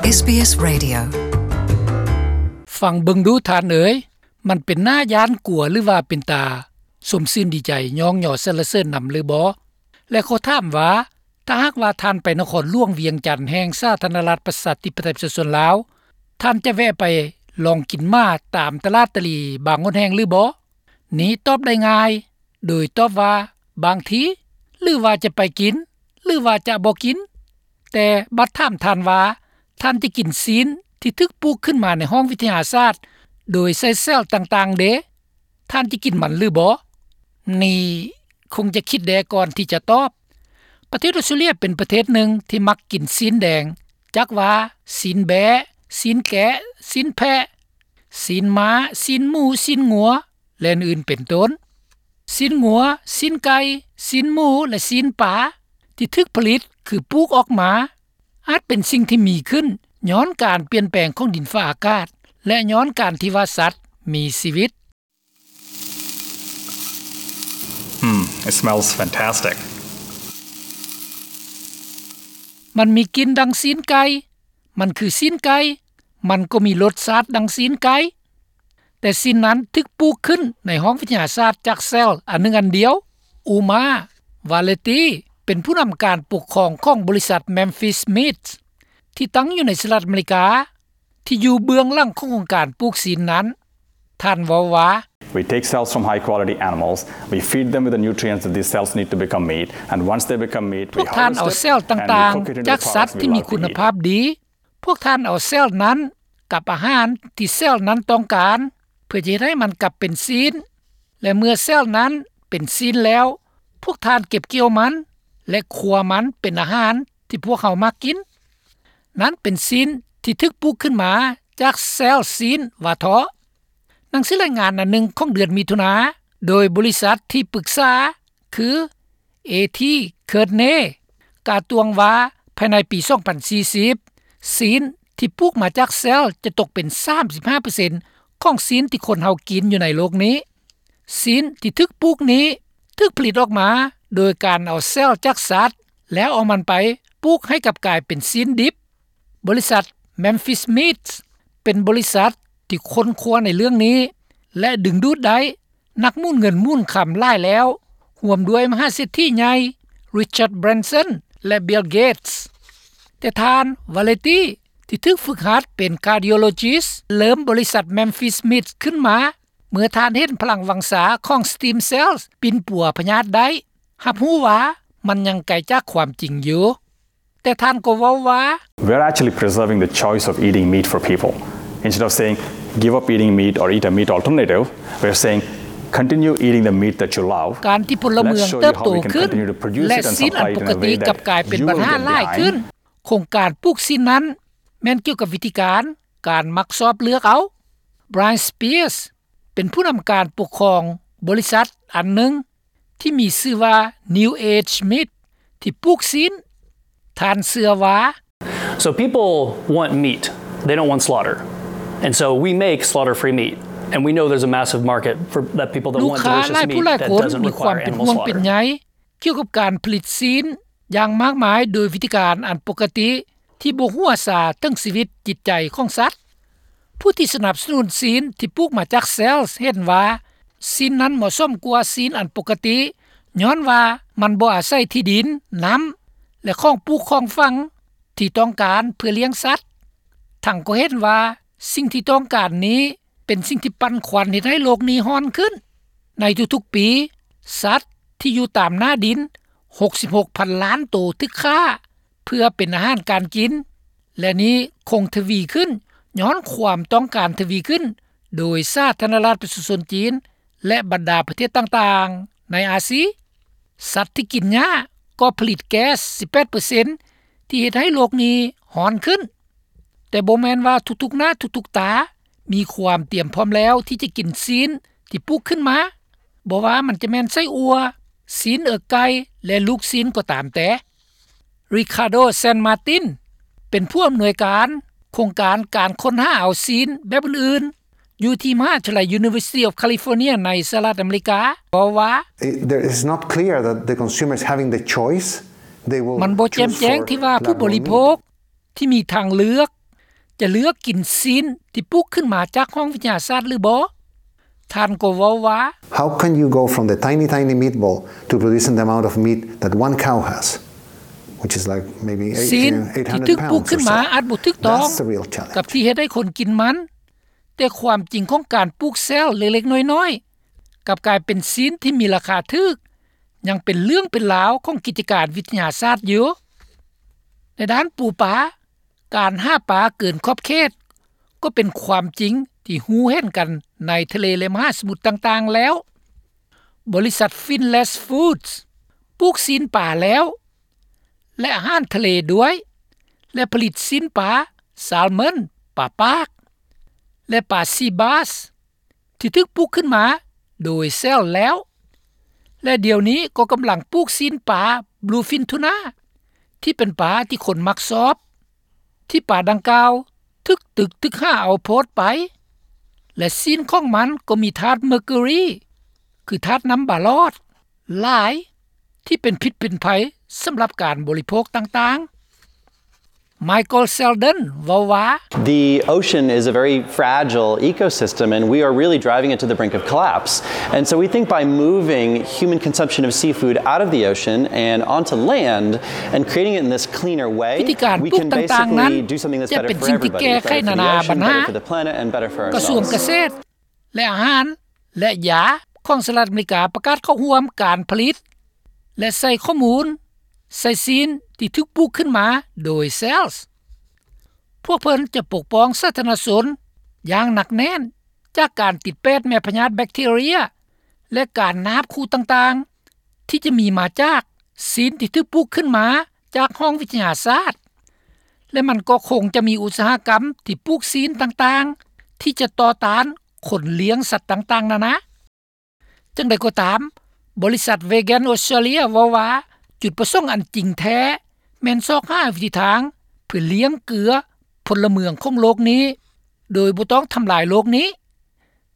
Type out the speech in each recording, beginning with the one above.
ເອສບີເອສ Radio. ຟັງເບິ່ງດູທ່ານເອີຍ, ມັນເປັນໜ້າຢ້ານກົວ ຫຼືວ່າເປັນຕາຊົມຊື່ນດີໃຈ ຍ້ອງຍໍສັນລະເສີນນຳຫຼືບໍ່? ແລະ ຂໍຖາມວ່າ ຖ້າຫາກວ່າທ່ານໄປນະຄອນຫຼວງວຽງຈັນ ແຫ່ງສາທາລະນະລັດ ປະຊາທິປະໄຕ ປະຊາຊົນລາວ, ທ່ານຈະແວະໄປລອງກິນໝາຕາມຕະຫຼາດຕະຫຼີບາງຫົນແຫ່ງຫຼືບໍ່? ນີ້ຕອບໄດ້ງ່າຍ ໂດຍຕອບວ່າ ບາງທີ ຫຼືວ່າຈະໄປກິນ ຫຼືວ່າຈະບໍ່ກິນ. ແຕ່ບັດຖາມທ່ານວ່າ ທ່ານຈະກິນຊີ້ນທີ່ຖືກປູກຂຶ້ນມາໃນຫ້ອງວິທະຍາສາດ ໂດຍໃຊ້ເຊວຕ່າງໆເດ? ທ່ານຈະກິນມັນຫຼືບໍ່? ນີ້ຄົງຈະຄິດແດ່ກ່ອນທີ່ຈະຕອບ. ປະເທດອອສເຕຣເລຍເປັນປະເທດໜຶ່ງທີ່ມັກກິນຊີ້ນແດງ, ຈັກວ່າຊີ້ນແບ້, ຊີ້ນແກະ, ຊີ້ນແພະ, ຊີ້ນມ້າ, ຊີ້ນໝູ, ຊີ້ນງົວ ແລະ ອື່ນໆເປັນຕົ້ນ. ຊີ້ນງົວ, ຊີ້ນໄກ່, ຊີ້ນໝູ ແລະ ຊີ້ນປາ ທີ່ຖືກຜະລິດ ຄືປູກອອກມາ ອາດເປັນສິ່ງທີ່ມີຂຶ້ນຍ້ອນການປ່ຽນແປງຂອງດິນຟ້າອາກາດ ແລະ ຍ້ອນການທີ່ວ່າສັດມີຊີວິດ. Mm, it smells fantastic. ມັນມີກິ່ນດັ່ງຊີ້ນໄກ່, ມັນຄືຊີ້ນໄກ່, ມັນກໍມີລົດຊາດດັ່ງຊີ້ນໄກ່. ແຕ່ຊີ້ນນັ້ນຖືກປູກຂຶ້ນໃນຫ້ອງວິທະຍາສາດຈາກເຊວອັນໜຶ່ງອັນດຽວ. ອູມາ ວາເລຕີ ເປັນຜູ້ນຳການປົກຄອງຂອງບໍລິສັດ Memphis Meats ທີ່ຕັ້ງຢູ່ໃນສະຫະລັດອາເມລິກາ ທີ່ຢູ່ເບື້ອງຫຼັງຂອງໂຄງການປູກຊີ້ນນັ້ນ. ທ່ານເວົ້າວ່າ We take cells from high quality animals, we feed them with the nutrients that these cells need to become meat, and once they become meat, we harvest it and we cook it into the products we love to eat. ພວກທ່ານເອົາເຊວຕ່າງໆຈາກສັດທີ່ມີຄຸນນະພາບດີ. ພວກທ່ານເອົາເຊວນັ້ນກັບອາຫານທີ່ເຊວນັ້ນຕ້ອງການ ເພື່ອຈະເຮັດໃຫ້ມັນກັບເປັນຊີ້ນ ແລະ ເມື່ອເຊວນັ້ນເປັນຊີ້ນແລ້ວ, ພວກທ່ານເກັບກ່ຽວມັນ ແລະ ຄົວມັນເປັນອາຫານທີ່ພວກເຮົາມັກກິນ. ນັ້ນເປັນຊີ້ນທີ່ຖືກປູກຂຶ້ນມາຈາກເຊວຊີ້ນວ່າເທາະ. ໜັງສືລາຍງານອັນໜຶ່ງຂອງເດືອນມິຖຸນາ ໂດຍບໍລິສັດທີ່ປຶກສາຄື ເອທີ ເຄີດເນ ກ່າວຕວງວ່າ ພາຍໃນປີສອງພັນສີ່ສິບ ຊີ້ນທີ່ປູກມາຈາກເຊວຈະຕົກເປັນສາມສິບຫ້າເປີເຊັນຂອງຊີ້ນທີ່ຄົນເຮົາກິນຢູ່ໃນໂລກນີ້. ຊີ້ນທີ່ຖືກປູກນີ້ຖືກຜະລິດອອກມາໂດຍການເອົາເຊວຈາກສັດ ແລ້ວເອົາມັນໄປປູກໃຫ້ກັບກາຍເປັນຊີ້ນດິບ. ບໍລິສັດ Memphis Meats ເປັນບໍລິສັດທີ່ຄົ້ນຄວ້າໃນເລື່ອງນີ້ ແລະ ດຶງດູດໄດ້ນັກໝູນເງິນໝູນຄຳຫຼາຍແລ້ວ, ຮ່ວມດ້ວຍມະຫາເສດຖີໃຫຍ່ Richard Branson ແລະ Bill Gates. ແຕ່ທ່ານ ວາເລຕີ ທີ່ຖືກຝຶກຫັດເປັນ cardiologist ເລີ່ມບໍລິສັດ Memphis Meats ຂຶ້ນມາ ເມື່ອທ່ານເຫັນພະລັງວັງຊາຂອງ stem cells ປິ່ນປົວພະຍາດໄດ້, ຮັບຮູ້ວ່າມັນຍັງໄກຈາກຄວາມຈິງຢູ່. ແຕ່ທ່ານກໍເວົ້າວ່າ We're actually preserving the choice of eating meat for people. Instead of saying, "Give up eating meat or eat a meat alternative," we're saying, "Continue eating the meat that you love. ການທີ່ພົນລະເມືອງເຕີບໂຕຂຶ້ນ ແລະ ຊີ້ນອັນປົກກະຕິກັບກາຍເປັນບັນຫາຫຼາຍຂຶ້ນ. ໂຄງການປູກຊີ້ນນັ້ນແມ່ນກ່ຽວກັບວິທີການ ການມັກຊອບເລືອກເອົາ. Brian Spears ເປັນຜູ້ນຳການປົກຄອງບໍລິສັດອັນໜຶ່ງ ທີ່ມີຊື່ວ່າ New Age Meat ທີ່ປູກຊີ້ນ. ທ່ານເຊື່ອວ່າ So people want meat. They don't want slaughter. And so we make slaughter-free meat. And we know there's a massive market for that people that want delicious meat that doesn't require animal slaughter. ລູກຄ້າຫຼາຍຜູ້ຫຼາຍຄົນມີຄວາມເປັນຫ່ວງເປັນໃຍກ່ຽວກັບການຜະລິດຊີ້ນຢ່າງມາກມາຍໂດຍວິທີການອັນປົກກະຕິ ທີ່ບໍ່ຫົວຊາເຖິງຊີວິດຈິດໃຈຂອງສັດ. ຜູ້ທີ່ສະໜັບສະໜູນຊີ້ນທີ່ປູກມາຈາກເຊວເຫັນວ່າ ຊີ້ນນັ້ນເໝາະສົມກວ່າຊີ້ນອັນປົກກະຕິ ຍ້ອນວ່າມັນບໍ່ອາໄສທີ່ດິນ, ນ້ຳ ແລະ ຂອງປູກຂອງຝັງທີ່ຕ້ອງການເພື່ອລ້ຽງສັດ. ທັງກໍເຫັນວ່າສິ່ງທີ່ຕ້ອງການນີ້ ເປັນສິ່ງທີ່ປັ່ນຄວັນເຮັດໃຫ້ໂລກນີ້ຮ້ອນຂຶ້ນ. ໃນທຸກໆປີ, ສັດທີ່ຢູ່ຕາມໜ້າດິນ ຫົກສິບຫົກພັນລ້ານໂຕຖືກຂ້າເພື່ອເປັນອາຫານການກິນ ແລະ ນີ້ຄົງທະວີຂຶ້ນຍ້ອນຄວາມຕ້ອງການທະວີຂຶ້ນໂດຍສາທາລະນະລັດປະຊາຊົນຈີນ ແລະ ບັນດາປະເທດຕ່າງໆໃນອາຊີ. ສັດທີ່ກິນຫຍ້າກໍຜະລິດແກັສສິບແປດເປີເຊັນ ທີ່ເຮັດໃຫ້ໂລກນີ້ຮ້ອນຂຶ້ນ. ແຕ່ບໍ່ແມ່ນວ່າທຸກໆໜ້າທຸກໆຕາມີຄວາມຕຽມພ້ອມແລ້ວທີ່ຈະກິນຊີ້ນທີ່ປູກຂຶ້ນມາ, ບໍ່ວ່າມັນຈະແມ່ນໄສ້ອົ່ວ, ຊີ້ນເອິກໄກ່ ແລະ ລູກຊີ້ນກໍຕາມແຕ່. Ricardo San Martin ເປັນຜູ້ອຳນວຍການໂຄງການການຄົ້ນຫາເອົາຊີ້ນແບບອື່ນໆ ຢູ່ທີ່ມະຫາວິທະຍາໄລ University of California ໃນສະຫະລັດອາເມລິກາ ເວົ້າວ່າ It, there, it's not clear that the consumer is having the choice. They will choose for lab-grown meat. ມັນບໍ່ແຈ່ມແຈ້ງທີ່ວ່າຜູ້ບໍລິໂພກທີ່ມີທາງເລືອກ ຈະເລືອກກິນຊີ້ນທີ່ປູກຂຶ້ນມາຈາກຫ້ອງວິທະຍາສາດຫຼືບໍ່? ທ່ານກໍເວົ້າວ່າ How can you go from the tiny, tiny meatball to producing the amount of meat that one cow has, which is like maybe ຊີ້ນທີ່ຖືກປູກຂຶ້ນມາອາດບໍ່ຖືກຕ້ອງກັບທີ່ເຮັດໃຫ້ຄົນກິນມັນ, ແຕ່ຄວາມຈິງຂອງການປູກແຊວເລັກໆນ້ອຍໆ ກັບກາຍເປັນຊີ້ນທີ່ມີລາຄາຖືກ ຍັງເປັນເລື່ອງເປັນລາວຂອງກິດຈະການວິທະຍາສາດຢູ່. ໃນດ້ານປູປາ, ການຫາປາເກີນຂອບເຂດກໍເປັນຄວາມຈິງທີ່ຮູ້ເຫັນກັນໃນທະເລ ແລະ ມະຫາສະໝຸດຕ່າງໆແລ້ວ. ບໍລິສັດ Finless Foods ປູກຊີ້ນປາແລ້ວ ແລະ ອາຫານທະເລດ້ວຍ ແລະ ຜະລິດຊີ້ນປາ Salmon ປາປາກ ແລະ ປາ Sea Bass ທີ່ຖືກປູກຂຶ້ນມາໂດຍແຊວແລ້ວ ແລະ ດຽວນີ້ກໍກຳລັງປູກຊີ້ນປາ Bluefin Tuna ທີ່ເປັນປາທີ່ຄົນມັກຊອບ ທີ່ປາດັ່ງກ່າວຖືກຕຶກຖືກຫາເອົາໂພດໄປ ແລະ ຊີ້ນຂອງມັນກໍມີທາດ mercury ຄືທາດນ້ຳບາຫຼອດ ຫຼາຍ ທີ່ເປັນພິດເປັນໄພສຳລັບການບໍລິໂພກຕ່າງໆ. Michael Selden ເວົ້າວ່າ The ocean is a very fragile ecosystem, and we are really driving it to the brink of collapse. And so we think by moving human consumption of seafood out of the ocean and onto land and creating it in this cleaner way, ວິທີການປູກຕ່າງໆນັ້ນຈະເປັນສິ່ງທີ່ແກ້ໄຂນານາບັນຫາ. ກະຊວງກະເສດ ແລະ ອາຫານ ແລະ ຢາຂອງສະຫະລັດອາເມລິກາປະກາດເຂົ້າຮ່ວມການຜະລິດ ແລະ ໃສ່ຂໍ້ມູນໃສ່ຊີ້ນທີ່ຖືກປູກຂຶ້ນມາໂດຍ Cells. ພວກເພິ່ນຈະປົກປ້ອງສາທາລະນະຊົນຢ່າງໜັກແໜ້ນຈາກການຕິດແປດແມ່ພະຍາດແບັກທີເຣຍ ແລະ ການນາບຂູ່ຕ່າງໆ ທີ່ຈະມີມາຈາກຊີ້ນທີ່ຖືກປູກຂຶ້ນມາຈາກຫ້ອງວິທະຍາສາດ ແລະ ມັນກໍຄົງຈະມີອຸດສາຫະກຳທີ່ປູກຊີ້ນຕ່າງໆ ທີ່ຈະຕໍ່ຕ້ານຄົນລ້ຽງສັດຕ່າງໆນານາ. ຈັ່ງໃດກໍຕາມ, ບໍລິສັດ Vegan Australia ເວົ້າວ່າ ຈຸດປະສົງອັນຈິງແທ້ແມ່ນຊອກຫາວິທີທາງເພື່ອລ້ຽງເກືອພົນລະເມືອງຂອງໂລກນີ້ ໂດຍບໍ່ຕ້ອງທຳລາຍໂລກນີ້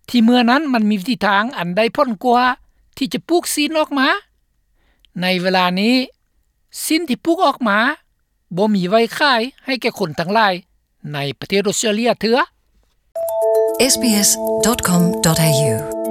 ທີ່ເມື່ອນັ້ນມັນມີວິທີທາງອັນໄດ້ຜົນກວ່າທີ່ຈະປູກຊີ້ນອອກມາ. ໃນເວລານີ້, ຊີ້ນທີ່ປູກອອກມາບໍ່ມີໄວ້ຂາຍໃຫ້ແກ່ຄົນທັງຫຼາຍໃນປະເທດອອສເຕຣເລຍເທື່ອ. SBS dot com dot A U